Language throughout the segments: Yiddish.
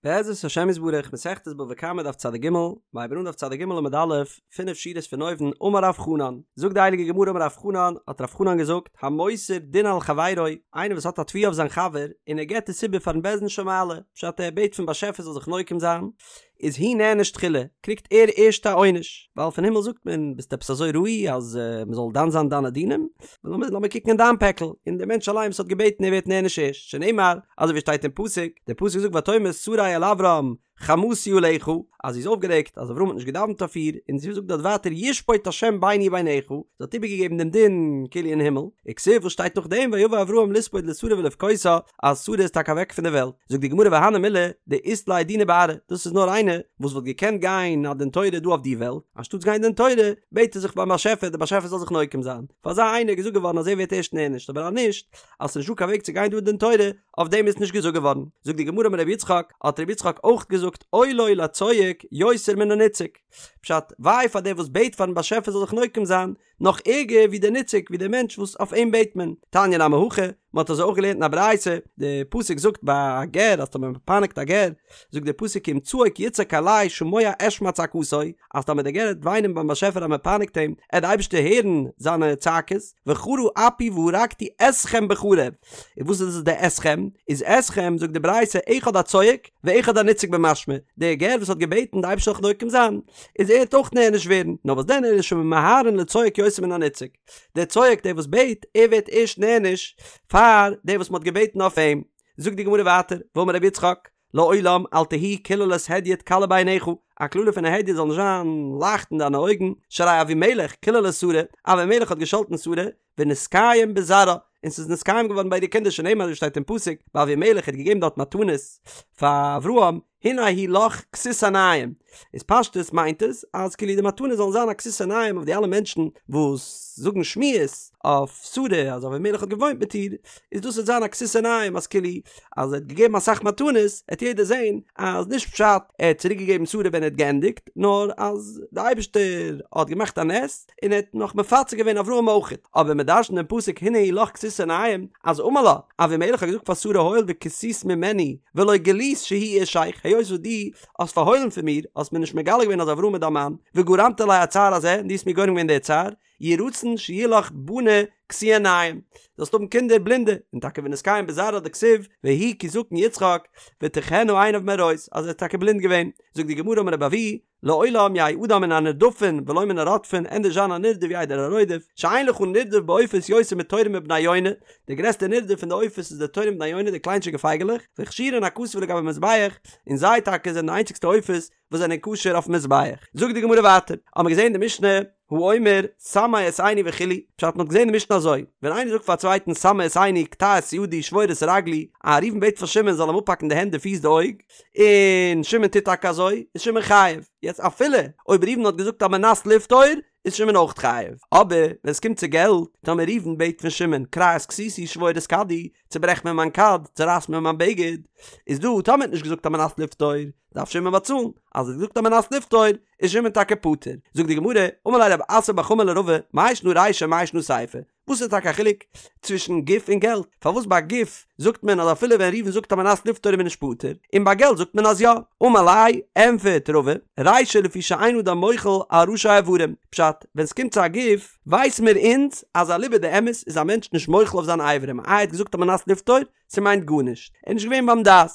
בעזרת השם יתברך, מסכת בבא קמא דף צג, מ'הייבן אן דף צג עמוד א', פינף שורות פון אויבן, אמר רב חנן, זאגט די הייליגע גמרא אמר רב חנן, האט רב חנן געזאגט, המוסר דין על חברו, איינער וואס האט א תביעה אויף זיין חבר, און ער געבט עס איבער פארן בית דין של מעלה, פשט ער בעט פון באשעפער זאל זיך נוקם זיין, איז הוא נענש תחילה, קריגט ער ערשט א עונש, ווייל פון הימל זאגט מען, ביסט עפעס אזוי ראוי אז מען זאל דן זיין דיינע דינים? לאמיר לאמיר קוקן אין דיין פעקל, און דער מענטש אליין וואס האט געבעטן ער ווערט נענש ערשט, שנאמר, אזוי ווי שטייט אין פסוק, דער פסוק זאגט ותאמר שרי אל אברם חמסי עליך, אז זי איז אויפגערעגט אז אברהם האט נישט געדאווענט אויף איר, און זי זאגט דארט ווייטער ישפוט השם ביני וביניך, זי האט איבערגעגעבן דעם דין כאילו אין הימל, וכתיב וואס שטייט נאכדעם ויבא אברהם לספוד לשרה ולבכותה, אז שרה איז טאקע אוועק פון דער וועלט. זאגט די גמרא והני מילי דאית ליה דינא בארעא, דאס איז נאר איינער וואס וואלט געקענט גיין א דין תורה דא אויף די וועלט, אנשטאטס גיין דין תורה בעט ער זיך ביים באשעפער דער באשעפער זאל זיך נוקם זיין, פאר אזא איינער איז געזאגט געווארן אז ער ווערט ערשט נענשט אבער אז נישט, אז ס'איז נישטא קיין וועג צו גיין דא דין תורה, אויף דעם איז נישט געזאגט געווארן. זאגט די גמרא אמר רבי יצחק, האט רבי יצחק אויך געזאגט אוי לו לצועק יותר מן הנצעק, פשט, וויי פאר דער וואס בעט פארן באשעפער זאל זיך נוקם זיין, נאך ערגער ווי דער נצעק, ווי דער מענטש וואס אויף אים בעט מען. תניא נמי הכי, מען האט אזוי אויך געלערנט אין א ברייתא, די פסוק זאגט ביי א גר אז טאמער מען פייניגט א גר, זאגט דער פסוק כי אם צעק יצעק אלי שמוע אשמע צעקתו, אז טאמער דער גר וועט וויינען ביים באשעפער אז מען פייניגט אים, עט די אייבערשטער הערן זיינע צעקות, וחרה אפי והרגתי אתכם בחרב. און וואס איז דאס די אתכם? איז אתכם זאגט די ברייתא אחד הצועק ואחד הנצעק במשמע, דער גר וואס האט געבעטן די אייבערשטער זאל זיך נוקם זיין, איז ער וועט אויך נענש ווערן, נאר וואס דען אלא שממהרין לצועק יותר מן הנצעק, דער צועק דער וואס בעט, ער ווערט ערשט נענש פאר דער וואס מען האט געבעטן אויף אים. זאגט די גמרא ווייטער, ואמר רבי יצחק, לעולם אל תהי קללת הדיוט קלה בעיניך, א קללה פון א הדיוט זאל נישט זיין לייכט אין דיינע אויגן, שהרי אבימלך קילל את שרה, אבימלך האט געשאלטן שרה, ונתקיים בזרעה, און ס'איז נתקיים געווארן ביי אירע קינדער שנאמר אזוי שטייט אין פסוק, ביי אבימלך האט געגעבן דארט מתנות פאר אברהם, הנה היא לך כסות עיניים, איז פשטות מיינט עס אז כאילו די מתנות זאלן זיין א כסות עיניים אויף די אלע מענטשן וואס זאגן שמועות אויף שרה אז אבימלך האט געוואוינט מיט איר, איז דאס וועט זיין א כסות עיניים אז כאילו אז ער האט געגעבן אסאך מתנות העט יעדער זען אז נישט פשט ער האט צוריק געגעבן שרה ווען ער האט געענדיגט נאר אז די אייבערשטער האט געמאכט א נס און ער האט נאך מפצה געווען אברהם אויכעט אבער מען דרש'נט דעם פסוק הנה היא לך כסות עיניים אז אמר לה אבימלך האט געזאגט פאר שרה הואיל וכסית ממני ולא גילית שהוא אישך היות וואס דו האסט פארהוילן פון מיר האסט מיר נישט מגלה געווען אז אברהם איז דיין מאן וגרמת לי הצער הזה און דו האסט מיר גורם געווען די צער יהי רצון שיהיו לך בני כסויי עיניים, זאלסט האבן קינדער בלינדע, און טאקע ונתקיים בזרעה דכתיב, ויהי כי זקן יצחק, ותכהין עיניו מראות, אז ער איז טאקע בלינד געווען. זאגט די גמרא אמר רבי אבהו, לעולם יהא אדם מן הנרדפין ולא מן הרודפין, ענדערש זיין א נרדף ווי איידער א רודף, שאין לך נרדף בעופות יותר מתורים ובני יונה, די גרעסטע נרדף פון די עופות איז די תורים ובני יונה די קליינטשיגע פייגעלעך, והכשירן הכתוב לגבי מזבח, און זיי טאקע זענען די איינציגסטע עופות וואס זענען כשר אויפן מזבח. זאגט די גמרא ווייטער, האמער געזען די משנה, האומר סמא את עיני וכו', פשט מ'האט געזען די משנה אזוי, ווען איינער זאגט פאר א צווייטן סמא את עיני קטע את ידי שבור את רגלי, א ראובן בעט פאר שמעון זאל אים אפהאקן די הענט די פיס די אויג, און שמעון טוט טאקע אזוי, איז שמעון חייב. יעצט אפילו אויב ראובן האט געזאגט על מנת לפטור, איז שמעון אויך חייב. אבער ווען ס'קומט צו געלט, טאמער ראובן בעט פון שמעון קרע את כסותי שבור את כדי, צוברעך מיר מיין כד, צורייס מיר מיין בגד, איז דא טאמער האט נישט געזאגט על מנת לפטור, דארף שמעון באצאלן, אז ער האט געזאגט על מנת לפטור, איז שמעון טאקע פטור. זאגט די גמרא, אמר ליה רב אסי בר חמא לרבא, מאי שנא רישא מאי שנא סיפא? וואס איז טאקע א חילוק צווישן גוף און געלט? פארוואס ביי גוף זאגט מען אז אפילו ווען ראובן זאגט על מנת לפטור איז מען נישט פטור, און ביי געלט זאגט מען אז יא? אמר ליה, ענפערט רבא, רישא לפי שאין אדם מוחל על ראשי אברים, פשט, ווען ס'קומט צו א גוף, ווייס מיר אונז אז אליבא דאמת איז א מענטש נישט מוחל אויף זיינע אברים, איי ער האט געזאגט על מנת לפטור? ס'מיינט גארנישט, ער איז נישט געווען ביים דעת.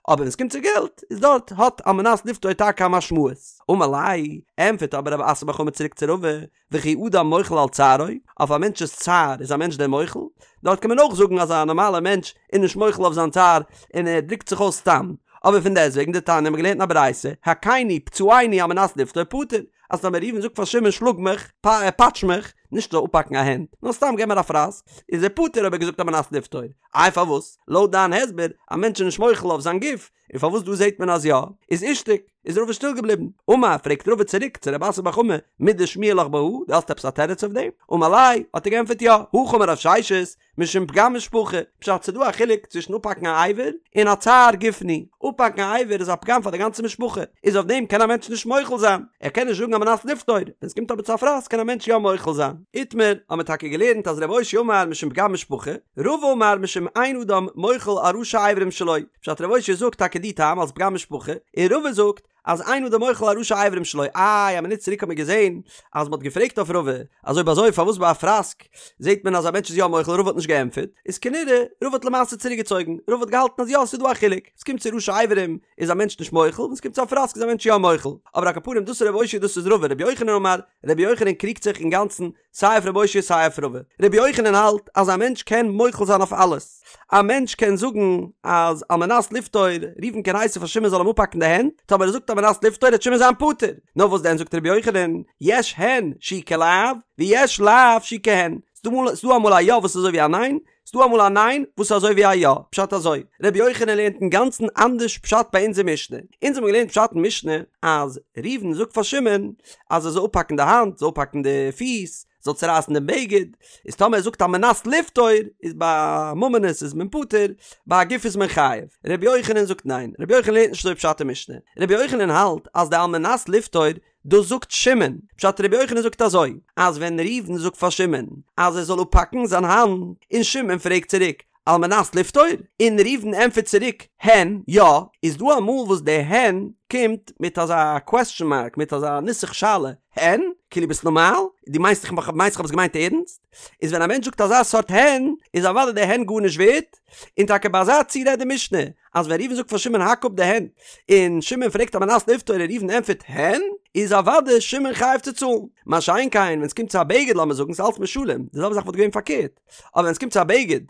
אבער ווען ס'קומט צו געלט, איז דארט האט על מנת לפטור טאקע א משמעות. אמר ליה, ענטפערט אבער רב אסי בר חמא צוריק צו רבא, וכי אדם מוחל על צערו, אויף א מענטש'ס צער איז א מענטש דען מוחל? דארט קען מען אויך זאגן אז א נארמאלער מענטש איז נישט מוחל אויף זיין צער און ער דרוקט זיך אויס סתם. אבער פון דעסטוועגן דתניא האבן מיר געלערנט אין א ברייתא, הכני פצעני על מנת לפטור פטור, אז טאמער ראובן זאגט פאר שמעון שלאג מיך, פאטש מיך, נישט זאל אפהאקן א הענט, נאר סתם געב מיר א פראסק, איז ער פטור אויב ער האט געזאגט על מנת לפטור. איי פארוואס? לויט דיין הסבר, א מענטש איז נישט מוחל אויף זיין גוף, און פארוואס דא זעט מען אז יא? איז אישתיק, איז רבא שטיל געבליבן. אמר, פרעגט רבא צוריק צו רב אסי בר חמא, מידי שמיע לך בהא, דו האסט עפעס א תירוץ אויף דעם? אמר ליה, האט ער געענטפערט יא, הכי אמר רב ששת, משום פגם משפחה, פשט ס'דא א חילוק צווישן אפהאקן א אבר און א צער גופני, אפהאקן א אבר איז א פגם פאר די גאנצע משפחה, איז אויף דעם קען א מענטש נישט מוחל זיין, ער קען נישט זאגן על מנת לפטור, ווען ס'קומט אבער צו א פראסק קען א מענטש יא מוחל זיין. איתמר, האט מען טאקע געלערנט אז ר' אושעיא אמר משום פגם משפחה, רבא אמר משום אין אדם מוחל על ראשי אברים שלו, פשט ר' אושעיא זאגט טאקע די טעם אלס פגם משפחה, און רבא זאגט אז אין אדם מוחל על ראשי אברים שלו, איי א מינוט צוריק האט מען געזען אז מ'האט געפרעגט אויף רבא אז אויב אזוי פארוואס ביי א פראסק זעט מען אז א מענטש איז יא מוחל רבא האט נישט געענטפערט, איז כנראה רבא האט למעשה צוריק געצויגן, רבא האט געהאלטן אז יא ס'איז דא א חילוק, ס'קומט צו ראשי אברים איז א מענטש נישט מוחל, ווען ס'קומט צו א פראסק איז א מענטש יא מוחל, אבער על כל פנים דאס איז ר' אושעיא דאס איז רבא, רבי יוחנן אמר, רבי יוחנן קריגט זיך אינגאנצן סיי אויף ר' אושעיא סיי אויף רבא. רבי יוחנן האלט אז א מענטש קען מוחל זיין אויף אלעס. א מענטש קען זאגן אז על מנת לפטור, ראובן קען הייסן פאר שמעון זאל אים אפהאקן די הענט, טאמער ער זאגט על מנת לפטור וועט שמעון זיין פטור. נאר וואס דען זאגט רבי יוחנן, יש הן שהוא כלאו, ויש לאו שהוא כהן. ס'דא אמאל א יא וואס איז אזוי ווי א ניין, ס'דא אמאל א ניין וואס איז אזוי ווי א יא, פשט אזוי, רבי יוחנן לערנט אינגאנצן אנדערש פשט ביי אונזער משנה, אונז האבן געלערנט פשט אין משנה אז ראובן זאגט פאר שמעון אז ער זאל אפהאקן די האנט, זאל אפהאקן די פיס, זאל צורייסן דעם בגד, איז טאמער ער זאגט על מנת לפטור איז ביי ממונות איז מען פטור, ביי א גוף איז מען חייב. רבי יוחנן זאגט ניין, רבי יוחנן לערנט נישט אזוי פשט אין משנה, רבי יוחנן האלט אז די על מנת לפטור דאס זאגט שמעון, פשט רבי יוחנן זאגט אזוי, אז ווען ראובן זאגט פאר שמעון אז ער זאל אפהאקן זיין האנט, און שמעון פרעגט צוריק על מנת לפטור, און ראובן ענטפערט צוריק הן, יא, איז דא אמאל וואס די הן קומט מיט אזא קוועסטשן מארק, מיט אזא נוסח שאלה, הן? כאילו ביסט נארמאל? דו מיינסט איך מיינסט איך האב עס געמיינט ערנסט? איז ווען א מענטש זאגט אזא סארט הן, איז אוודאי די הן גארנישט ווערט, און טאקע ביי אזא ציור רעדט די משנה, אז ווען ראובן זאגט פאר שמעון האק אפ די הענט, און שמעון פרעגט על מנת לפטור און ראובן ענטפערט הן, איז אוודאי שמעון חייב צו צאלן. מה שאין כן ווען עס קומט צו א בגד לאמיר זאגן ס'איז אלץ משלים, די זעלבע זאך וואלט געווען פארקערט, אבער ווען עס קומט צו א בגד,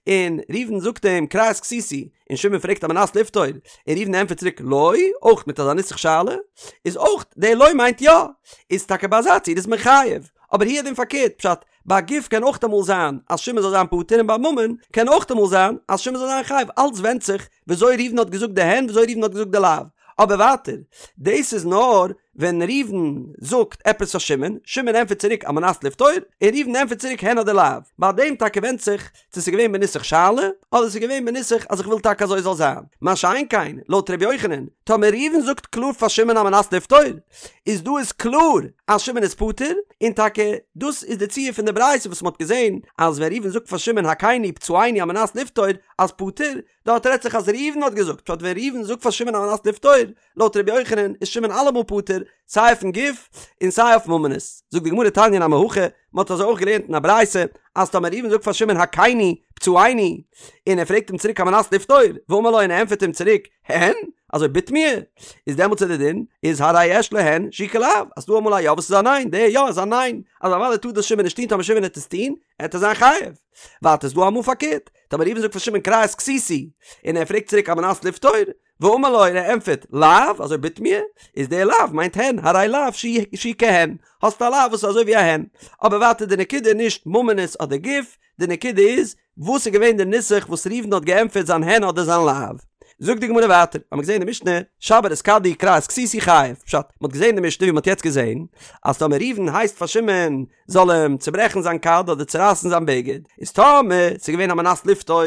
און ראובן זאגט אים קרע את כסותי, און שמעון פרעגט על מנת לפטור, און ראובן ענטפערט צוריק לא, אויך מיט אזא נוסח שאלה, איז אויך די לא מיינט יא, איז טאקע ביי אזא ציור איז מען חייב, אבער הוא הדין פארקערט, פשט, ביי גוף קען אויך אמאל זיין אז שמעון זאל זיין פטור און ביי ממון קען אויך אמאל זיין אז שמעון זאל זיין חייב, אלץ ווענדט זיך וויאזוי ראובן האט געזאגט די הן וויאזוי ראובן האט געזאגט די לאו. אבער ווייטער, דאס איז נאר ווען ראובן זאגט עפעס פאר שמעון, שמעון ענטפערט צוריק על מנת לפטור, און ראובן ענטפערט צוריק הן אדער לאו. ביי דעם טאקע ווענדט זיך צו ס'איז געווען בנוסח שאלה, אדער ס'איז געווען בנוסח אז איך וויל טאקע אזוי זאל זיין. מה שאין כן, לויט ר' יוחנן, טאמער ראובן זאגט קלאר פאר שמעון על מנת לפטור, איז דא איז קלאר אז שמעון איז פטור, און טאקע דאס איז די ציור פון די ברייתא וואס מ'האט געזען אז ווען ראובן זאגט פאר שמעון הכני פצעני על מנת לפטור אז פטור, דארט רעדט זיך אז ראובן האט געזאגט, פשט ווען ראובן זאגט פאר שמעון על מנת לפטור, לויט ר' יוחנן איז שמעון אלעמאל פטור, סיי אויפן גוף און סיי אויף ממונות. זאגט די גמרא תניא נמי הכי, מען האט אזוי אויך געלערנט אין א ברייתא, אז טאמער ראובן זאגט פאר שמעון הכני פצעני, און ער פרעגט אים צוריק על מנת לפטור, ואמר לו און ער ענטפערט אים צוריק, הן? אזוי בתמיה? איז דעמאלטס איז די דין, איז הרי יש לו הן שהוא כלאו, אז ס'דא אמאל א יא וואס איז א ניין, די יא איז א ניין, אז אוודאי טאר דאס שמעון נישט טון, טאמער שמעון העט עס טון, העט ער זיין חייב. ווייטער איז דא אמאל פארקערט, טאמער ראובן זאגט פאר שמעון קרע את כסותי, און ער פרעגט צוריק על מנת לפטור, ואמר לו און ער ענטפערט לאו, אזוי בתמיה, איז דער לאו מיינט הן, הרי לאו שהוא כהן, האסט א לאו וואס איז אזוי ווי א הן. אבער ווייטער די נקודה איז נישט ממונות אדער גוף, די נקודה איז, וואס איז געווען די נוסח וואס ראובן האט געענטפערט זיין הן אדער זיין לאו. זאגט די גמרא ווייטער, האמיר געזען אין די משנה, שבר את כדי קרע את כסותי חייב, פשט, מען האט געזען אין די משנה ווי מען האט יעצט געזען, אז טאמער ראובן הייסט פאר שמעון זאל אים צוברעכן זיין כד אדער צורייסן זיין בגד, איז טאמער ס'איז געווען על מנת לפטור,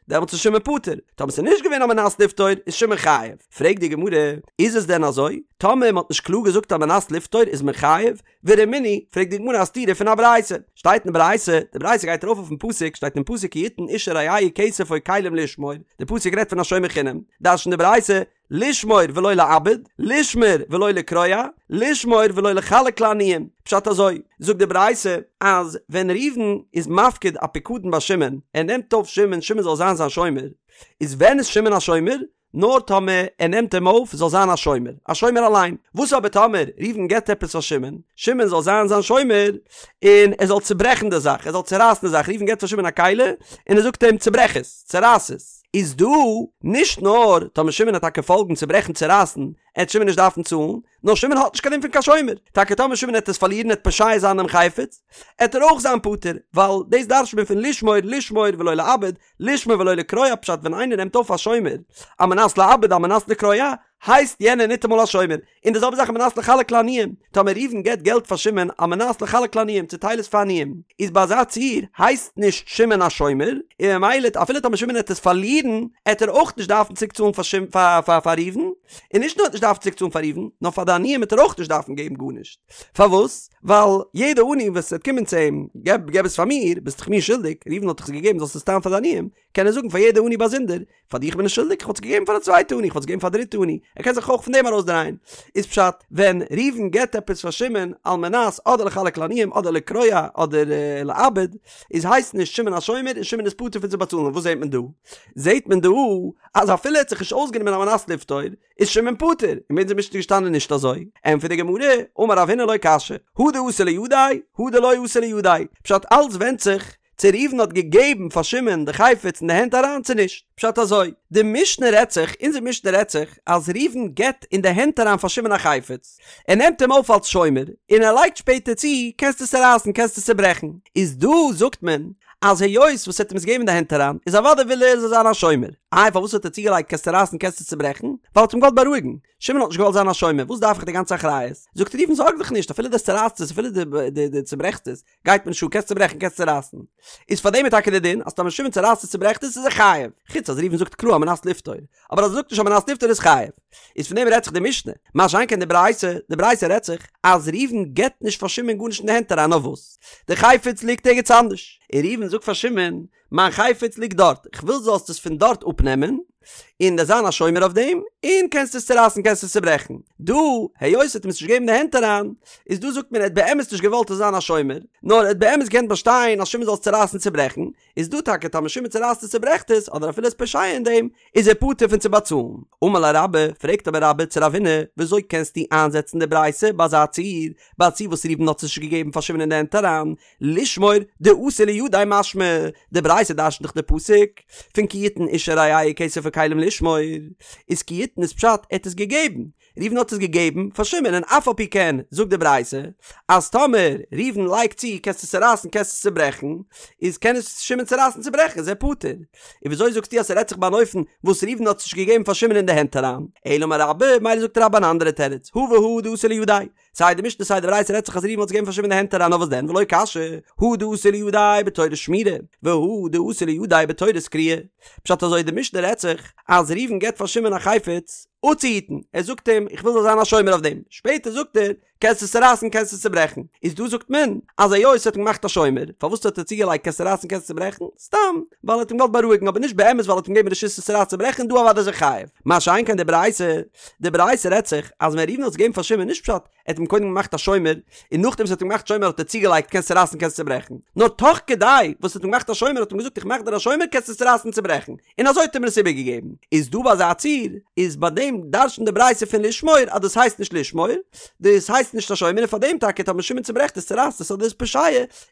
דעמאלטס איז שמעון פטור, טאמער ס'איז נישט געווען על מנת לפטור איז שמעון חייב. פרעגט די גמרא, איז עס דען אזוי? טאמער מ'האט נישט קלאר געזאגט על מנת לפטור איז מען חייב? ורמינהי, פרעגט די גמרא א סתירה פון א ברייתא. שטייט אין ברייתא, די ברייתא גייט ארויף אויפן פסוק, שטייט אין פסוק כי יתן איש אל רעהו כסף או כלים לשמור, די פסוק רעדט פון א שומר חינם, דרש'נט די ברייתא, לשמור ולא לאבד, לשמור ולא לקרוע, לשמור ולא לחלק לעניים. פשט אזוי, זאגט די ברייתא, אז ווען ראובן איז מפקיד א פיקדון ביי שמעון, ער נעמט אויף שמעון, שמעון זאל זיין זיין שומר, איז ווען איז שמעון א שומר? נאר טאמער ער נעמט אים אויף זאל זיין א שומר, א שומר אליין. וואס אבער טאמער ראובן געבט עפעס פאר שמעון, שמעון זאל זיין זיין שומר, און ער זאל צוברעכן די זאך, ער זאל צורייסן די זאך, ראובן געבט פאר שמעון א כלי, און ער זאגט אים צוברעך עס, צורייס עס. איז דא נישט נאר טאמער שמעון העט טאקע פאלגן צוברעכן צורייסן, עט שמעון נישט דארפן צאלן, נאר שמעון האט נישט קיין דין פון קיין שומר, טאקע טאמער שמעון העט עס פארלירן העט פושע זיין דעם חפץ, עט ער אויך זיין פטור, ווייל דאס דרש'ט מען פון לשמור לשמור ולא לאבד, לשמור ולא לקרוע פשט ווען איינער נעמט אויף א שומר על מנת לאבד על מנת לקרוע הייסט יענער ניטאמאל א שומר, און די זעלבע זאך על מנת לחלק לעניים, טאמער ראובן געבט געלט פאר שמעון על מנת לחלק לעניים צוטייל עס פאר עניים, איז ביי אזא ציור הייסט נישט שמעון א שומר, און ממילא אפילו טאמער שמעון העט עס פארלירן עט ער אויך נישט דארפן צוריק צאלן פאר פאר ראובן. און נישט נאר ער וועט נישט דארפן צוריק צאלן פאר ראובן, נאר פאר די עניים וועט ער אויך נישט דארפן געבן גארנישט. פארוואס? ווייל יעדע עני וואס וועט קומען צו אים, געב געב עס פאר מיר, ביסט דאך מיר שולדיג, ראובן האט דאך עס געגעבן זאלסט עס טיילן פאר די עניים, קען ער זאגן פאר יעדע עני באזונדער, פאר דיך בין איך שולדיג, איך וואלט עס געגעבן פאר א צווייטע עני, איך וואלט עס געגעבן פאר א דריטע עני, ער קען זיך אויך פון דעם ארויסדרייען. איז פשט, ווען ראובן געבט עפעס פאר שמעון על מנת אדער לחלק לעניים אדער לקרוע אדער לאבד, איז הייסט נישט שמעון א שומר און שמעון איז פטור פון צו באצאלן, וואס זעט מען דא? זעט מען דא אז אפילו ער האט זיך נישט אויסגענומען על מנת לפטור, איז שמעון פטור, און ביי אונזער משנה איז געשטאנען נישט אזוי, ענטפערט די גמרא, אמר רב הונא לא קשיא, הא דאתא לידיה, הא דלא אתא לידיה, פשט אלץ ווענדט זיך צו ראובן האט געגעבן פאר שמעון די חפץ אין די הענט אריין צו נישט, פשט אזוי, די משנה רעדט זיך, אונזער משנה רעדט זיך, אז ראובן געבט אין די הענט אריין פאר שמעון א חפץ, ער נעמט אים אויף אלס שומר, און ער לייגט שפעטער צו, קענסט עס צורייסן, קענסט עס צוברעכן, איז דא זאגט מען, אז היות וואס ער האט אים עס געגעבן אין די הענט אריין, איז אוודאי וויל ער ער זאל זיין א שומר. איי פארוואס האט ער צוגעלייגט קענסט צורייסן קענסט עס צוברעכן? ווייל ער האט אים געוואלט בארואיגן. שמעון האט נישט געוואלט זיין א שומר, וואס דארף איך די גאנצע אחריות? זאגט ראובן זארג דיך נישט, אפילו דו צורייסט עס אפילו דו צוברעכסט עס, גייט מיר נישט אן, קענסט צוברעכן קענסט צורייסן. איז פאר דעם איז טאקע די דין אז טאמער שמעון צורייסט עס צוברעכט עס איז ער חייב. חוץ אז ראובן זאגט קלאר על מנת לפטור. אבער אז ער זאגט נישט על מנת לפטור איז חייב. איז פון דעם רעדט זיך די משנה. מה שאין כן די ברייתא, די ברייתא רעדט זיך אז ראובן געבט נישט פאר שמעון גארנישט אין די הענט אריין נאר וואס? די חפץ ליגט ערגעץ אנדערש. און ראובן זאגט פאר שמעון, מיין חפץ ליגט דארט, איך וויל זאלסט עס פון דארט אפנעמען, און דו'סט זיין א שומר אויף דעם, און קענסט עס צורייסן קענסט עס צוברעכן. דא, היות ער האט אים עס נישט געגעבן אין די הענט אריין, איז דא זאגט מען ער האט באמת נישט געוואלט עס זיין א שומר, נאר ער האט באמת געקענט באשטיין אז שמעון זאל עס צורייסן צוברעכן, איז דא טאקע טאמער שמעון צורייסט עס צוברעכט עס, אדער אפילו איז פושע אין דעם, איז ער פטור פון צו באצאלן. אמר ליה רבה, פרעגט אבער רבה צו רב הונא, וויאזוי קענסטו איינזעצן די ברייתא ביי אזא ציור, ביי א ציור וואס ראובן האט עס נישט געגעבן פאר שמעון אין די הענט אריין, לשמור דאתא לידיה משמע, די ברייתא דרש'נט דאך די פסוק פון כי יתן איש אל רעהו כסף או כלים לשמור, איז כי יתן איז פשט ער האט עס געגעבן, ראובן האט עס געגעבן פאר שמעון און אף על פי כן זאגט די ברייתא אז טאמער ראובן לייגט צו קענסט עס צורייסן קענסט עס צוברעכן איז קען עס שמעון צורייסן צוברעכן איז ער פטור, און וויאזוי זאגסטו אז ס'רעדט זיך ביי אן אופן וואס ראובן האט עס נישט געגעבן פאר שמעון אין די הענט אריין? אלא אמר רבה, מילא זאגט רבה אן אנדערע תירוץ, הא והא דאתא לידיה, סיי די משנה סיי די ברייתא רעדט זיך אז ראובן האט עס געגעבן פאר שמעון אין די הענט אריין נאר וואס דען ולא קשיא הא דאתא לידיה בתורת שמירה והא דאתא לידיה בתורת קריעה פשט אזוי די משנה רעדט זיך אז ראובן געבט פאר שמעון א חפץ אפצוהיטן ער זאגט אים איך וויל זאלסט זיין א שומר אויף דעם שפעטער זאגט ער קענסט עס צורייסן קענסט עס צוברעכן איז דא זאגט מען אז היות ער האט אים געמאכט א שומר פארוואס האט ער צוגעלייגט קענסט צורייסן קענסט צוברעכן סתם ווייל ער האט אים געוואלט בארואיגן אבער נישט באמת ווייל ער האט אים געגעבן רשות עס צורייסן צוברעכן דא אוודאי איז ער חייב מה שאין כן די ברייתא די ברייתא רעדט זיך אז ווען ראובן האט עס געגעבן פאר שמעון נישט פשט ער האט אים קודם געמאכט א שומר און נאכדעם וואס ער האט אים געמאכט שומר האט ער צוגעלייגט קענסט צורייסן קענסט צוברעכן נאר תוך כדי וואס ער האט אים געמאכט א שומר האט אים געזאגט איך מאך דיר א שומר קענסט עס צורייסן צוברעכן און אזוי האט ער אים עס איבערגעגעבן איז דא ביי אזא ציור איז ביי דעם דרש'נט די ברייתא פון לשמור אז דאס הייסט נישט לשמור דאס הייסט נישט א שומר און פאר דעם טאקע טאמער שמעון צוברעכט עס צורייסט עס אדער איז פושע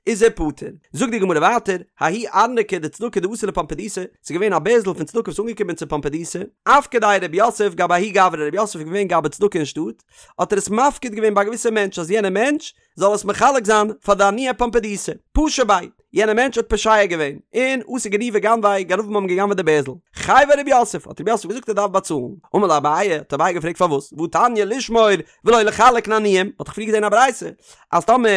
איז ער פטור. זאגט די גמרא ווייטער, ההוא ארנקא דצדקה דאתא לפומבדיתא, ס'איז געווען א בערזל פון צדקה וואס איז אנגעקומען צו פומבדיתא, אפקדיה רב יוסף גבי ההוא גברא, רב יוסף איז געווען גבאי צדקה אין שטאט, האט ער עס מפקיד געווען ביי א געוויסע מענטש אז יענער מענטש זאל עס מחלק זיין פאר די עניי פומבדיתא, פשע ביה, יענער מענטש האט פושע געווען, און אתו גנבי גנביה, גנבים האבן גע'גנב'עט די בערזל. חייביה רב יוסף, האט רב יוסף געזאגט ער דארף באצאלן. אמר ליה אביי, האט אביי געפרעגט פארוואס, והתניא לשמור ולא לחלק לעניים, מ'האט דאך פריער געזען א ברייתא אז טאמער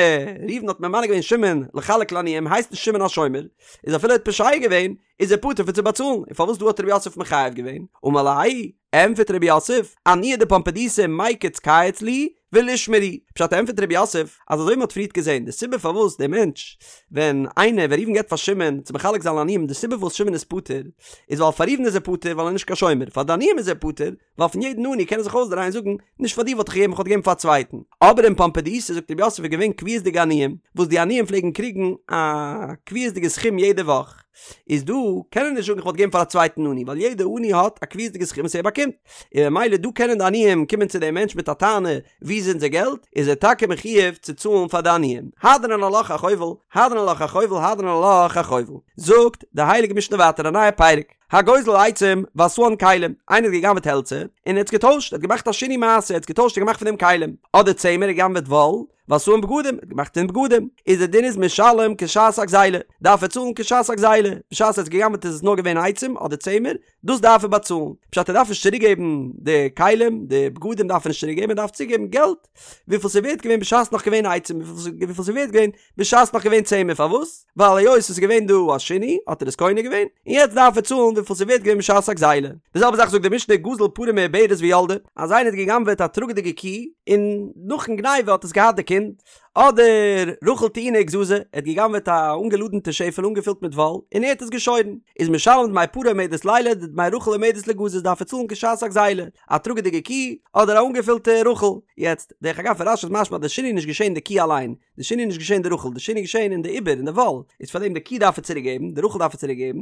ראובן האט ממנה געווען שמעון לחלק לעניים הייסט נישט שמעון א שומר, איז אפילו ער האט פושע געווען איז ער פטור פון צו באצאלן, און פארוואס דא האט רב יוסף מחייב געווען? אמר ליה, ענטפערט רב יוסף, עניי דפומבדיתא מיקץ קייץ להו ולישמרו, פשט ענטפערט רב יוסף אז אזוי ווי מ'האט פריערט געזען די סיבה פארוואס דער מענטש ווען איינער ווען ראובן געבט פאר שמעון צו מחלק זיין לעניים די סיבה פארוואס שמעון איז פטור איז ווייל פאר ראובן איז ער פטור ווייל ער איז נישט קיין שומר פאר די עניים איז ער פטור ווייל פון יעדן עני קען ער זיך אויסדרייען און זאגן, נישט פאר דיר וואלט איך געגעבן, איך וואלט געגעבן פאר א צווייטן. אבער אין פומבדיתא זאגט רב יוסף איז געווען קביעות'דיגע עניים, וואס די עניים פלעגן קריגן א קביעות'דיגע סכום יעדע וואך. איז דא קען ער נישט זאגן איך וואלט געגעבן פאר א צווייטן עני, ווייל יעדע עני האט א קביעות'דיגע סכום וואס ער באקומט. און ממילא דא קענען די עניים קומען צו דעם מענטש מיט א טענה, וואו איז אונזער געלט? איז ער טאקע מחויב צו צאלן פאר די עניים. הדרן עלך החובל, הדרן עלך החובל, הדרן עלך החובל. זאגט די הייליגע משנה ווייטער א נייע פרק. הגוזל עצים ועשאן כלים, איינער האט גע'גנב'עט העלצער, און ער האט עס געטוישט, ער האט געמאכט א שינוי מעשה, ער האט עס געטוישט און געמאכט פון דעם כלים, אדער צמר, ער האט גע'גנב'עט וואל, ועשאן בגדים, ער האט געמאכט פון בגדים, איז די דין איז משלם כשעת הגזילה, דארף ער צאלן כשעת הגזילה, בשעת ער האט עס גע'גנב'ט איז עס נאר געווען עצים אדער צמר, דאס דארף ער באצאלן, פשט ער דארף נישט צוריק געבן די כלים, די בגדים דארף ער נישט צוריק געבן, ער דארף צוריק געבן געלט וויפיל ס'איז ווערט געווען בשעת נאך געווען עצים, וויפיל ס'איז ווערט געווען בשעת נאך געווען צמר, פארוואס? ווייל היות עס איז געווען דא א שינוי האט ער עס קונה געווען, און יעצט דארף ער צאלן וויפיל ס'איז ווערט געווען בשעת הגזילה. די זעלבע זאך זאגט די משנה גזל פרה מעוברת וילדה, אז איינער האט גע'גנב'עט א טראגעדיגע קי, און נאכן גניבה האט עס געהאט די קינד, אדער רחל טעונה וגזזה, ער האט גע'גנב'עט א אנגעלאדענטע שעפעלע אנגעפילט מיט וואל, און ער האט עס געשוירן, איז משלם דמי פרה העומדת לילד ודמי רחל העומדת ליגזז דארף ער צאלן כשעת הגזילה, א טראגעדיגע קי, אדער א אנגעפילטע רחל. יעצט, דרך אגב פון רש"י איז משמע אז די שינוי איז נישט געשען די קי אליין, די שינוי איז נישט געשען די רחל, די שינוי איז געשען אין די עובר, אין די וואל, איז פאר דעם די קי דארף ער צוריק געבן, די רחל דארף ער צוריק געבן,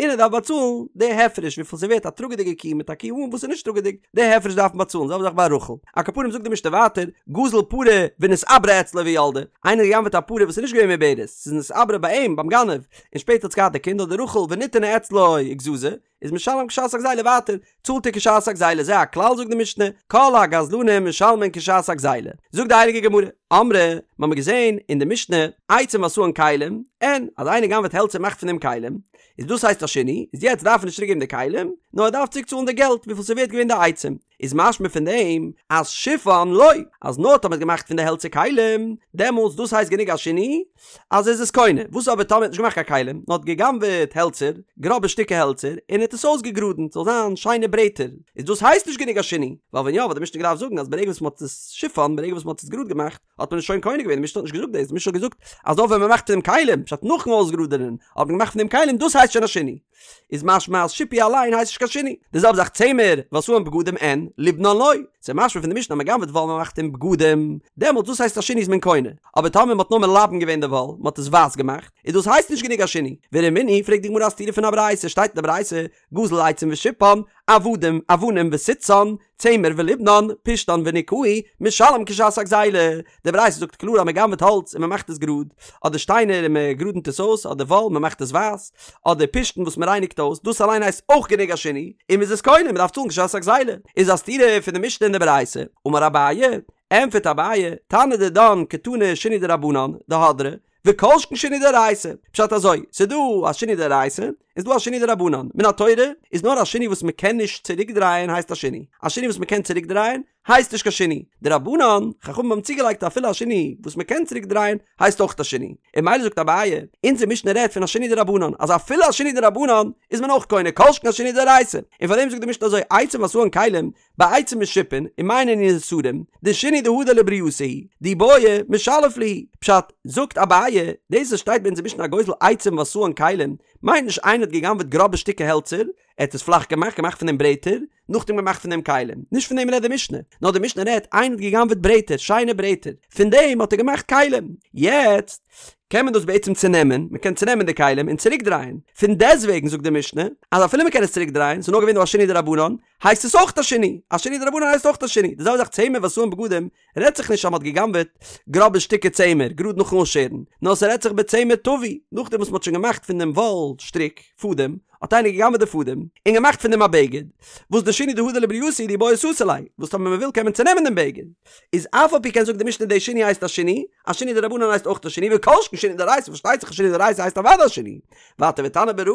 און ער דארף באצאלן די הפרש וויפיל ס'איז ווערט א טראגעדיגע קי מיט א קי אן וואס איז נישט טראגעדיג, די הפרש דארף מען באצאלן, זעלבע זאך ביי רחל. על כל פנים זאגט די משנה ווייטער, גזל פרה ונתעברה אצלו וילדה, איינער האט גע'גנב'עט א פרה וואס איז נישט געווען מעוברת, ס'איז נתעברה ביי אים, ביים גנב, און שפעטער האט עס געהאט די קינד, אדער רחל ונטענה אצלו וגזזה, איז משלם כשעת הגזילה ווייטער, צאלט ער כשעת הגזילה, זה הכלל זאגט די משנה, כל הגזלנים משלמין כשעת הגזילה. זאגט די הייליגע גמרא, אמרי, מ'האמיר געזען אין די משנה, עצים ועשאן כלים, אין, אז איינער גנב'עט העלצער מאכט פון דעם כלים, איז דאס הייסט א שינוי, איז יעצט דארף ער נישט צוריק געבן די כלים, נאר ער דארף צוריק צאלן די געלט וויפיל ס'איז ווערט געווען די עצים. איז משמע פון דעם אז שיפן לא, אז נאר טאמער מ'האט געמאכט פון די העלצער כלים, דעמאלטס דאס הייסט גענוג א שינוי, אז ער איז עס קונה, וואס אבער טאמער ער האט נישט געמאכט קיין כלים, נאר האט גע'גנב'עט העלצער, גראבע שטיקער העלצער, און ער האט עס אויסגעגראדענט ס'זאל זיין שיינע ברעטער, איז דאס הייסט נישט גענוג א שינוי, ווייל ווען יא וואלט די משנה געדארפט זאגן אז ברגע וואס מ'האט עס שיפן, ברגע וואס מ'האט עס גראד געמאכט, האט מען עס שוין קונה געווען, די משנה האט נישט געזאגט דאס, די משנה האט געזאגט אז נאר ווען מ'מאכט פון דעם כלים, פשט נאכן אויסגראדענען האט מען געמאכט פון דעם כלים, דאס הייסט שוין א שינוי. איז משמע אז שיפוי אליין הייסט נישט קיין שינוי. די זעלבע זאך צמר, ועשאן בגדים אין, ליבנן לא. ס'איז משמע פון די משנה אז מ'גנב'עט וואל מ'מאכט פון בגדים, דעמאלטס דאס הייסט א שינוי איז מען קונה. אבער טאמער מ'האט נאר מלבן געווען די וואל, מ'האט עס ווייס געמאכט, איז דאס הייסט נישט גענוג א שינוי. ורמינהי, פרעגט די גמרא א סתירה פון א ברייתא, שטייט אין די ברייתא, גזל עצים ושיפן, עבדים, אבנים וסיתתן, צמר וליבנן, פשתן וניקהו, משלם כשעת הגזילה. די ברייתא זאגט קלאר אז מען גנב'עט האלץ און מען מאכט עס גראד, אדער שטיינער און מען גראדענט עס אויס, אדער וואל מען מאכט עס ווייס, אדער פשתן וואס מען רייניגט אויס, דאס אליין הייסט אויך גענוג א שינוי, און מען איז עס קונה, מען דארף צאלן כשעת הגזילה. איז א סתירה פון די משנה און די ברייתא. אמר אביי, ענטפערט אביי, תנא דידן קתני שינוי דרבנן, דהדרא, וכל שכן שינוי דאורייתא. פשט אזוי, ס'איז דא א שינוי דאורייתא, און ס'איז דא א שינוי דרבנן. מן התורה איז נאר א שינוי וואס מ'קען נישט צוריקדרייען הייסט א שינוי. א שינוי וואס מ'קען צוריקדרייען הייסט נישט קיין שינוי. דרבנן, חכמים האבן צוגעלייגט אפילו א שינוי וואס מ'קען צוריקדרייען הייסט אויך א שינוי. און ממילא זאגט אביי, אונזער משנה רעדט פון א שינוי דרבנן, אז אפילו א שינוי דרבנן איז מען אויך קונה, כל שכן א שינוי דאורייתא. און פארדעם זאגט די משנה אזוי, עצים ועשאן כלים, בעצים משופין, ומאי נינהו נסרים, דשינוי דהדר לברייתא הוא, דאי בעי משלף להו. פשט, זאגט אביי, דאס וואס שטייט ביי אונזער משנה הגוזל עצים ועשאן כלים, מיינט נישט איינער האט גע'גנב'עט גראבע שטיקער העלצער, ער האט עס פלאך געמאכט, געמאכט פון דעם ברעטער, נאכדעם געמאכט פון דעם כלים. נישט פון דעם רעדט די משנה. נאר די משנה רעדט, איינער האט גע'גנב'עט ברעטער, שיינע ברעטער, פון דעם האט ער געמאכט כלים. יעצט, קען מען דאס בעצם צונעמען, מען קען צונעמען די כלים און צוריקדרייען. פון דעסטוועגן זאגט די משנה, אז אפילו מען קען עס צוריקדרייען, ס'איז נאר געווען דא א שינוי דרבנן, הייסט עס אויך א שינוי, א שינוי דרבנן הייסט אויך א שינוי, די זעלבע זאך צמר ועשאן בגדים, רעדט זיך נישט אז מ'האט גע'גנב'עט גראבע שטיקער צמר גראד נאכן אויסשערן, נאר ס'רעדט זיך בצמר טווי, נאכדעם וואס מ'האט שוין געמאכט פון דעם וואל שטריק, פאדעם, האט איינער גע'גנב'עט די פאדעם, און געמאכט פון דעם א בגד, וואס דשינוי דהדר לברייתא הוא דאי בעי סתי ליה, וואס טאמער מ'וויל קען מען צונעמען דעם בגד, איז אף על פי כן זאגט די משנה די שינוי הייסט א שינוי, א שינוי דרבנן הייסט אויך א שינוי, וכל שכן שינוי דאורייתא, פארשטייט זיך א שינוי דאורייתא הייסט אוודאי א שינוי, ווייטער ותנא ברא,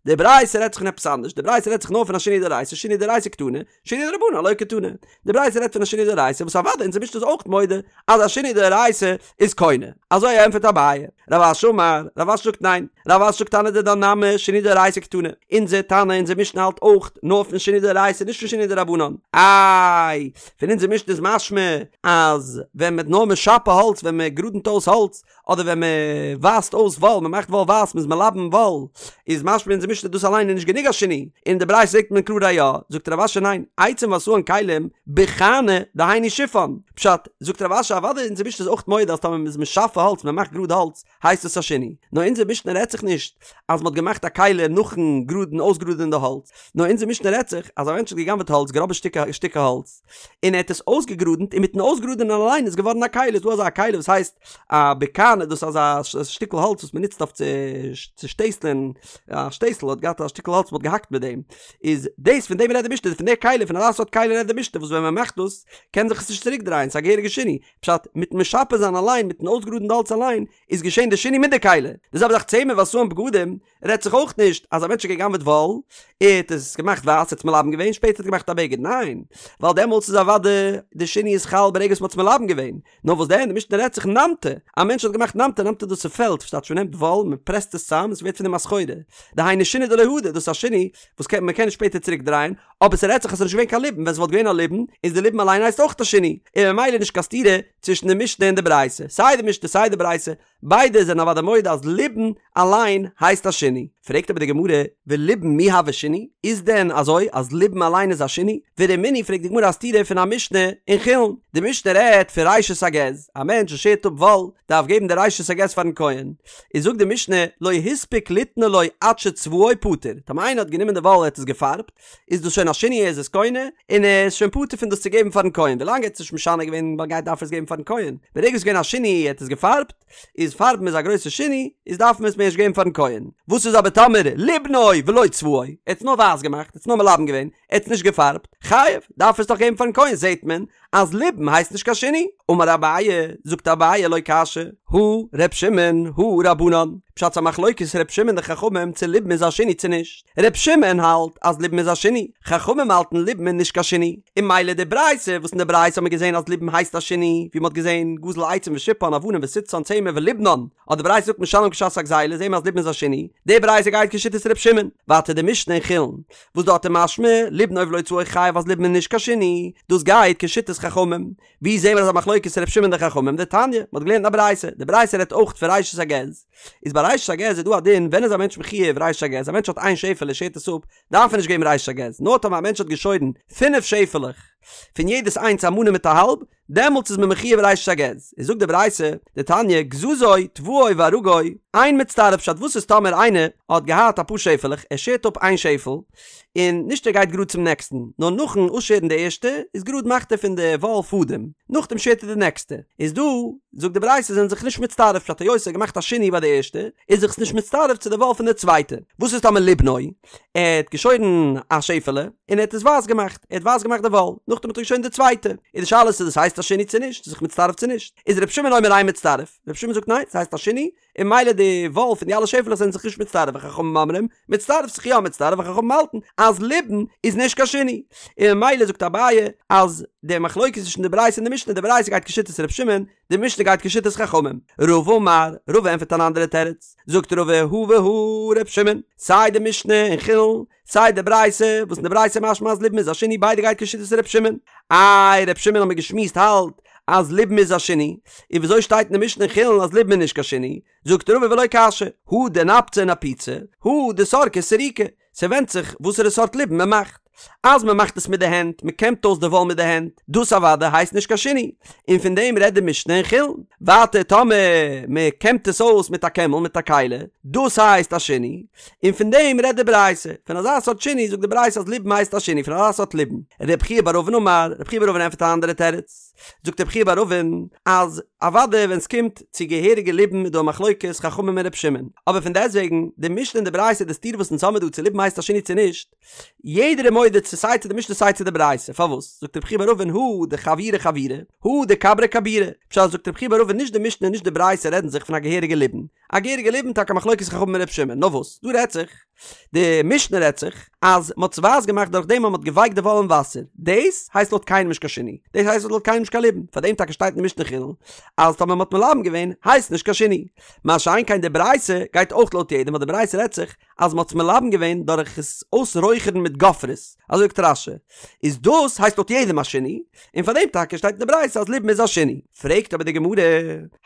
די ברייתא רעדט זיך פון עפעס אנדערש, די ברייתא רעדט זיך נאר פון א שינוי דאורייתא, שינוי דאורייתא קתני, שינוי דרבנן לא קתני. די ברייתא רעדט פון א שינוי דאורייתא וואס אוודאי אונזער משנה איז אויך מודה אז א שינוי דאורייתא איז קונה. אזוי ענטפערט אביי. רב אשי אמר, רב אשי זאגט ניין, רב אשי זאגט תנא דידן נמי שינוי דאורייתא קתני. אונזער תנא, אונזער משנה האלט אויך נאר פון שינוי דאורייתא נישט פון שינוי דרבנן. איי, פון אונזער משנה איז משמע אז ווען מ'האט נאר משפה האלץ ווען מ'גראדנט אויס האלץ אדער ווען מען ווייסט אויס וואל, מען מאכט וואל ווייס, מען איז מלבן וואל, איז משמע אונזער משנה דאס אליין איז נישט גענוג א שינוי, אין די ברייתא זעט מען קלאר א יא, זאגט רב אשי ניין, עצים ועשאן כלים, בחני, דהיינו שיפן, פשט, זאגט רב אשי אוודאי אונזער משנה איז אויך מודה אז טאמער מען איז משפה האלץ, מען מאכט גראד האלץ, הייסט עס א שינוי, נאר אונזער משנה רעדט. רעדט זיך נישט אז מ'האט געמאכט א כלי נאכן גראדן אויסגראדען די האלץ, נאר אונזער משנה רעדט זיך אז א מענטש האט גע'גנב'עט האלץ, גראבע שטיקער האלץ, און ער האט עס אויסגעגראדענט און מיטן אויסגראדענען אליין איז געווארן א כלי, איז דא אזא כלי וואס הייסט א בקני דאס איז אזא שטיקל האלץ וואס מ'נוצט אויף צו שטעסלען, א שטעסל האט געהאט א שטיקל האלץ מ'האט געהאקט מיט דעם, איז דאס פון דעם רעדט די משנה, פון די כלי, פון אזא סארט כלי רעדט די משנה וואס ווען מ'מאכט דאס קען זיך עס נישט צוריק דרייען, ס'איז א געהעריגע שינוי, פשט, מיטן משפע זיין אליין, מיטן אויסגראדן די האלץ אליין, איז געשען די שינוי מיט די כלי. די זעלבע זאך צמר ועשאן בגדים, רעדט זיך אויך נישט אז א מענטש האט גע'גנב'עט וואל, ער האט עס געמאכט ווייס, ער האט עס מלבן געווען, שפעטער האט ער געמאכט א בגד, ניין, ווייל דעמאלטס איז אוודאי די שינוי איז חל ברגע וואס מ'האט עס מלבן געווען, נאר וואס דען, די משנה רעדט זיך נמטי, א מענטש האט געמאכט נמטי, נמטי דאס איז פעלט, ס'טייטש מ'נעמט וואל, מ'פרעסט עס צאם, עס ווערט פון דעם א סחורה, דהיינו שינוי דלא הדר, דאס איז א שינוי וואס קען מ'קען נישט שפעטער צוריק דרייען, אבער ס'רעדט זיך אז ס'איז נישט געווען קיין ליבון, ווען ס'וואלט געווען א ליבון, איז די ליבון אליין הייסט אויך א שינוי, און ממילא נישט קיין סתירה צווישן די משנה און די ברייתא, סיי די משנה סיי די ברייתא, ביידע זענען אוודאי מודה אז ליבון אליין הייסט א שינוי. פרעגט אבער די גמרא, וליבון מי הוי שינוי? איז דען אזוי אז ליבון אליין איז א שינוי? ורמינהי פרעגט די גמרא א סתירה פון א משנה אין חולין, די משנה רעדט פון ראשית הגז, א מענטש וואס שערט אפ וואל דארף געבן די ראשית הגז פארן כהן, איז זאגט די משנה לא הספיק ליתנו לו עד שצבעו פטור, טאמער איינער האט גענומען די וואל ער האט עס געפארבט, איז דאס שוין א שינוי ער איז עס קונה, און ער איז שוין פטור פון דאס צו געבן פארן כהן, ווילאנג ער האט עס נישט משנה געווען גייט דארף ער עס געבן פארן כהן, ברגע עס איז געווען א שינוי ער האט עס געפארבט, איז פארבן איז א גרויסע שינוי, איז דארף מען עס מער נישט געבן פארן כהן. וואס איז אבער טאמער ליבנו ולא צבעו, ער האט עס נאר ווייס געמאכט, ער האט עס נאר מלבן געווען, ער האט עס נישט געפארבט, חייב, דארף ער עס דאך געבן פארן כהן, זעט מען אז ליבון הייסט נישט קיין שינוי. אמר אביי, זאגט אביי לא קשיא, הא ר' שמעון, הא רבנן, פשט ס'א מחלוקת ר' שמעון די חכמים צו ליבון איז א שינוי צו נישט, ר' שמעון האלט אז ליבון איז א שינוי, חכמים האלטן ליבון איז נישט קיין שינוי, און ממילא די ברייתא וואס אין די ברייתא האט מען געזען אז ליבון הייסט א שינוי, ווי מ'האט געזען גזל עצים ושיפן אבנים וסיתתן צמר וליבנן, האט די ברייתא געזאגט משלם כשעת הגזילה זעהן מיר אז ליבון איז א שינוי, די ברייתא גייט כשיטת ר' שמעון, ווייטער די משנה אין חולין וואס דארט איז משמע ליבנו ולא צבעו חייב אז ליבון איז נישט קיין שינוי, דאס גייט כשיטת חכמים, ווי זעהן מיר אזא מחלוקת ר' שמעון די חכמים? דתניא, מ'האט געלערנט אין א ברייתא, די ברייתא רעדט אויך פון ראשית הגז, איז ביי ראשית הגז איז דא א דין ווען איז א מענטש מחויב ראשית הגז, א מענטש האט איין שעפעלע שערט עס אפ, דארף ער נישט געבן ראשית הגז, נאר טאמער א מענטש האט געשוירן פינף שעפעלעך, פון יעדעס איינס א מנה מיט א האלב, דעמאלטס איז מען מחויב ראשית הגז, איז זאגט די ברייתא, דתניא, גזזו, טוואו וארגו, אין מצטרף פשט וואס איז טאמער איינער האט געהאט אפאר שעפעלעך, ער שערט אפ איין שעפעל, און נישט ער גייט גראד צום נעקסטן, נאר נאכן אויסשערן די ערשטע, איז גראד מאכט ער פון די וואל פאדעם, נאכדעם שערט ער די נעקסטע, איז דא, זאגט די ברייתא זענען זיך נישט מצטרף פשט היות ער האט געמאכט א שינוי ביי די ערשטע, איז זיך עס נישט מצטרף צו די וואל פון די צווייטע, וואס איז טאמער ליבנו, ער האט געשוירן א שעפעלע, און ער האט עס ווייס געמאכט, ער האט ווייס געמאכט די וואל, נאכדעם האט ער געשוירן די צווייטע, איז די שאלה צו דאס הייסט א שינוי צו נישט, ס'איז זיך מצטרף צו נישט, איז ר' שמעון אומר אין מצטרף, ר' שמעון זאגט ניין, ס'הייסט א שינוי, און ממילא די וואל פון די אלע שעפעלעך זענען זיך נישט מצטרף, וחכמים אומרים, מצטרף זיך יא מצטרף, וחכמים האלטן אז ליבון איז נישט קיין שינוי, און ממילא זאגט אביי אז די מחלוקת צווישן די ברייתא און די משנה, די ברייתא גייט כשיטת ר' שמעון, די משנה גייט כשיטת חכמים. רבא אמר, רבא ענטפערט אן אנדערע תירוץ, זאגט רבא הא והא ר' שמעון, סיי די משנה אין חולין, סיי די ברייתא, וואס אין די ברייתא משמע אז ליבון איז א שינוי ביידע גייט כשיטת ר' שמעון. איי ר' שמעון האמיר געשמועסט האלט אז ליבון איז א שינוי, און וויאזוי שטייט אין די משנה אין חולין אז ליבון איז נישט קיין שינוי? זאגט רבא ולא קשיא, הא דנפציה נפוצי, הא דסרקיה סרוקי, ס'ווענדט זיך וואסערע סארט ליבון מ'מאכט. אז מ'מאכט עס מיט די הענט, מ'קעמט אויס די וואל מיט די הענט, דאס אוודאי הייסט נישט קיין שינוי. און פון דעם רעדט די משנה אין חולין. ווייטער טאמער מ'קעמט עס אויס מיט א קעמל מיט א כלי, דאס הייסט א שינוי. און פון דעם רעדט די ברייתא. פון אזא סארט שינוי זאגט די ברייתא אז ליבון הייסט א שינוי פון אזא סארט ליבון. רב חייא בר אבין אמר, רב חייא בר אבין ענטפערט א אנדערע תירוץ. זאגט רב חייא בר אבין אז אוודאי ווען סקומט צו געהעריגע ליבון איז דא א מחלוקת חכמים און ר' שמעון, אבער פון דעסטוועגן די משנה און די ברייתא די סתירה וואס אונז האמיר דא צו ליבון הייסט א שינוי צו נישט, יעדער איז מודה צו סיי צו די משנה סיי צו די ברייתא, פארוואס? זאגט רב חייא בר אבין הא דחוורי חוורי, הא דכברי כבורי, פשט זאגט רב חייא בר אבין נישט די משנה און נישט די ברייתא רעדן זיך פון א געהעריגע ליבון, א געהעריגע ליבון טאקע מחלוקת חכמים און ר' שמעון, נאר וואס דא רעדט זיך, די משנה רעדט זיך אז מ'האט עס ווייס געמאכט דורך דעם אז מ'האט געווייקט די וואל אין וואסער, דאס הייסט לויט קיינעם נישט קיין שינוי, דאס הייסט לויט קיינעם נישט קיין ליבון, פאר דעם טאקע שטייט אין די משנה חולין אז טאמער מ'האט מלבן געווען הייסט נישט קיין שינוי, מה שאין כן די ברייתא גייט אויך לויט יעדעם ווייל די ברייתא רעדט זיך אז מ'האט עס מלבן געווען דורך עס אויסרויכערן מיט גופרית, אזוי זאגט רש"י, איז דאס הייסט לויט יעדעם א שינוי, און פאר דעם טאקע שטייט אין די ברייתא אז ליבון איז א שינוי. פרעגט אבער די גמרא,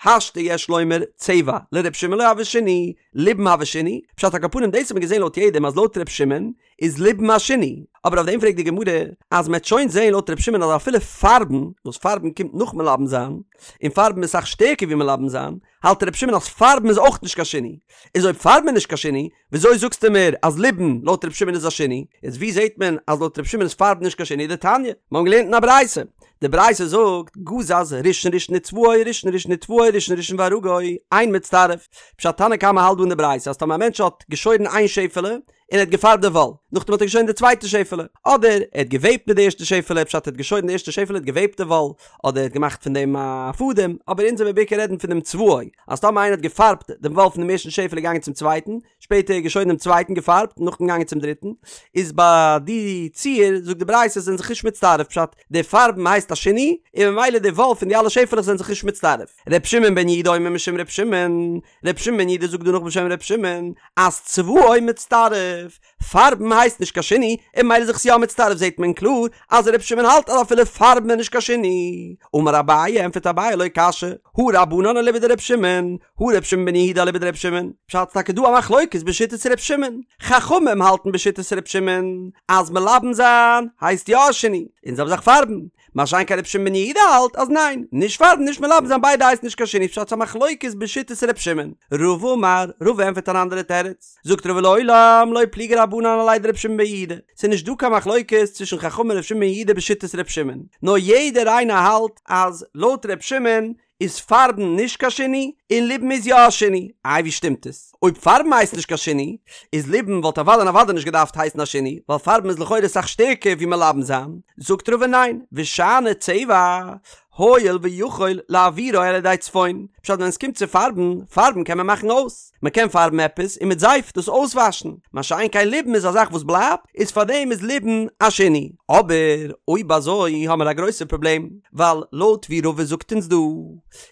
השתא יש לומר צבע לר' שמעון שמעון לא הוי שינוי, ליבון הוי שינוי, פשט על כל פנים דאס האט מען געזען לויט יעדעם אז לויט ר' שמעון איז ליבון א שינוי, אבער אויף דעם פרעגט די גמרא אז מ'עט שוין זען לויט ר' שמעון אז אפילו פארבן, וואס פארבן קומט נאך מלבן זיין, און פארבן איז אסאך שטערקער ווי מלבן זיין, האלט ר' שמעון אז פארבן איז אויך נישט קיין שינוי, איז אויב פארבן איז נישט קיין שינוי, וויאזוי זאגסטו מיר אז ליבון לויט ר' שמעון איז א שינוי? איז ווי זעט מען אז לויט ר' שמעון איז פארבן נישט קיין שינוי? דתניא, מיר האבן געלערנט אין א ברייתא, די ברייתא זאגט, גזז ראשון ראשון וצבעו ראשון ראשון וטוואו ראשון ראשון וארגו, אין מצטרף. פשט תנא קמא האלט דא אין די ברייתא אז טאמער א מענטש האט געשוירן איין שעפעלע, און ער האט געפארבט די וואל, נאכדעם האט ער געשוירן די צווייטע שעפעלע, אדער ער האט געוועבט מיט די ערשטע שעפעלע, פשט ער האט געשוירן די ערשטע שעפעלע האט געוועבט די וואל, אדער ער האט געמאכט פון דעם א פאדעם, אבער אונז וועמיר בעיקר רעדן פון דעם צבעו, אז טאמער איינער האט געפארבט דעם וואל פון דעם ערשטן שעפעלע געגאנגען צום צווייטן, שפעטער געשוירן דעם צווייטן געפארבט, נאכדעם געגאנגען צום דריטן, איז ביי די ציור זאגט די ברייתא זענען זיך נישט מצטרף, פשט די פארבן הייסט א שינוי, און ממילא די וואל פון די אלע שעפעלעך זענען זיך נישט מצטרף. ר' שמעון בן יהודה אומר משום ר' שמעון, ר' שמעון בן יהודה זאגט דא נאך בשם ר' שמעון, אז צבעו מצטרף, פארבן הייסט נישט קיין שינוי, און ממילא איז זיך עס יא מצטרף זעט מען קלאר אז ר' שמעון האלט אז אפילו פארבן איז נישט קיין שינוי. אמר אביי, ענטפערט אביי לא קשיא, הא רבנן אליבא דר' שמעון, הא ר' שמעון בן יהודה אליבא דר' שמעון, פשט ס'טאקע דא א מחלוקת בשיטת ר' שמעון, חכמים האלטן בשיטת ר' שמעון אז מלבן זיין הייסט יא א שינוי, און זעלבע זאך פארבן, מה שאין כן ר' שמעון בן יהודה האלט אז ניין, נישט פארבן נישט מלבן זיין ביידע הייסט נישט קיין שינוי פשט ס'א מחלוקת בשיטת ר' שמעון. רבא אמר, רבא ענטפערט אן אנדערע תירוץ, זאגט רבא לעולם לא פליגי רבנן עליה דר' שמעון בן יהודה, ס'איז נישט דא קיין מחלוקת צווישן חכמים און ר' שמעון בן יהודה בשיטת ר' שמעון, נאר יעדער איינער האלט אז לויט ר' שמעון איז פארבן נישט קיין שינוי און ליבון איז יא א שינוי, איי ווי שטימט עס? אויב פארבן הייסט נישט קיין שינוי, איז ליבון וואלט אוודאי און אוודאי נישט געדארפט הייסן א שינוי, ווייל פארבן איז לכאורה אסאך שטערקער ווי מלבן זיין, זאגט רבא ניין, ושאני צבע, הואיל ויכול להעבירו על ידי צפון, פשט ווען עס קומט צו פארבן, פארבן קען מען מאכן אויס, מען קען פארבן עפעס און מיט זייף דאס אויסוואשן, מה שאין כן ליבון איז א זאך וואס בלייבט, איז פארדעם איז ליבון א שינוי. אבער אויב אזוי האמער א גרויסע פראבלעם, ווייל לויט ווי רבא זאגט אונז דא,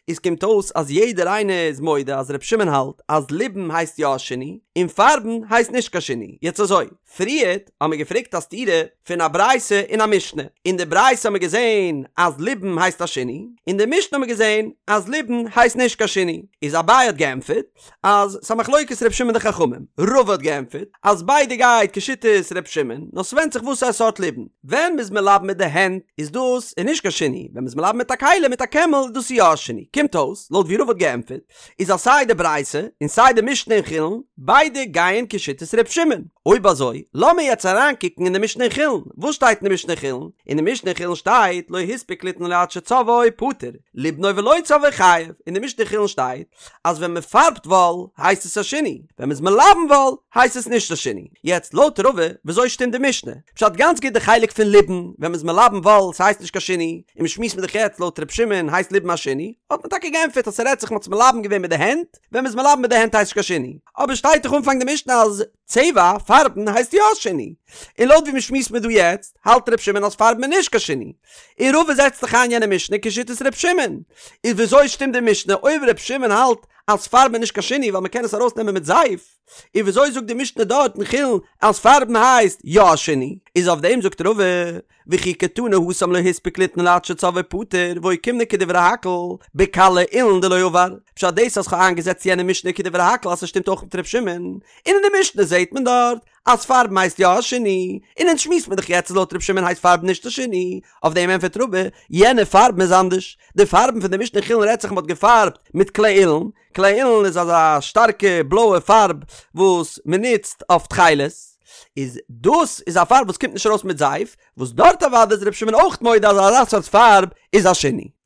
איז קומט אויס אז יעדער איינער איז מודה אז ר' שמעון האלט אז ליבון הייסט יא א שינוי, און פארבן הייסט נישט קיין שינוי. יעצט אזוי, פריערט האמער געפרעגט א סתירה פון א ברייתא און א משנה, אין די ברייתא האמער געזען אז ליבון הייסט א שינוי, אין די משנה האמער געזען אז ליבון הייסט נישט קיין שינוי, איז אביי האט געענטפערט אז ס'א מחלוקת ר' שמעון די חכמים, רבא האט געענטפערט אז ביידע גייט כשיטת ר' שמעון, נאר ס'ווענדט זיך וואס א סארט ליבון, ווען מ'איז מלבן מיט די הענט איז דאס איז נישט קיין שינוי, ווען מ'איז מלבן מיט א כלי מיט א קעמל איז דאס יא א שינוי, קומט אויס לויט ווי רבא האט געענטפערט איז אז סיי די ברייתא און סיי די משנה אין חולין ביידע גייען כשיטת ר' שמעון, אויב אזוי לאמיר יעצט אריינקוקן אין די משנה אין חולין, וואס שטייט אין די משנה אין חולין? אין די משנה אין חולין שטייט לא הספיק ליתנו עד שצבעו פטור, ליבנו ולא צבעו חייב, אין די משנה אין חולין שטייט אז ווען מען פארבט וואל הייסט עס א שינוי, ווען מען איז מלבן וואל הייסט עס נישט א שינוי. יעצט לויט רבא וויאזוי שטימט די משנה? פשט גאנץ גוט די חלק פון ליבון, ווען מען איז מלבן וואל ס'הייסט נישט קיין שינוי, און מ'שמועסט מיט דיך יעצט לויט ר' שמעון הייסט ליבון א שינוי, האט מען טאקע געענטפערט אז ס'רעדט זיך מ'האט עס מלבן געווען מיט די הענט, ווען מ'איז מלבן מיט די הענט הייסט נישט קיין שינוי, אבער שטייט דאך אנפאנג די משנה אז צבע, פארבן, הייסט יא א שינוי. און לויט ווי מ'שמועסט מיר דא יעצט, האלט ר' שמעון אז פארבן איז נישט קיין שינוי. און רבא זעצט דאך איין יענע משנה כשיטת ר' שמעון. איז וויאזוי שטימט די משנה אויב ר' שמעון האלט אז פארבן איז נישט קיין שינוי ווייל מ'קען עס ארויסנעמען מיט זייף? און וויאזוי זאגט די משנה דארט אין חולין אז פארבן הייסט יא א שינוי? איז אויף דעם זאגט רבא, וכי קתני התם לא הספיק ליתנו עד שצבעו פטור ואוקימנא כדברי הכל בקלא אילן דלא עבר, פשט דאס אז כ'האב איינגעזעצט יענע משנה כדברי הכל אז ס'שטימט אויך מיט ר' שמעון, און אין די משנה זעהט מען דארט אז פארבן הייסט יא א שינוי, און אונז שמועסט מען דאך יעצט אז לויט ר' שמעון הייסט פארבן נישט א שינוי, אויף דעם ענפערט רבא, יענע פארבן איז אנדערש, די פארבן פון די משנה אין חולין רעדט זיך מ'האט געפארבט מיט קלא אילן, קלא אילן איז אזא שטארקע בלויע פארב וואס מען נוצט אויף תכלת, איז דאס איז א פארב וואס קומט נישט ארויס מיט זייף, וואס דארט אוודאי איז ר' שמעון אויך מודה אז אזא סארט פארב איז א שינוי.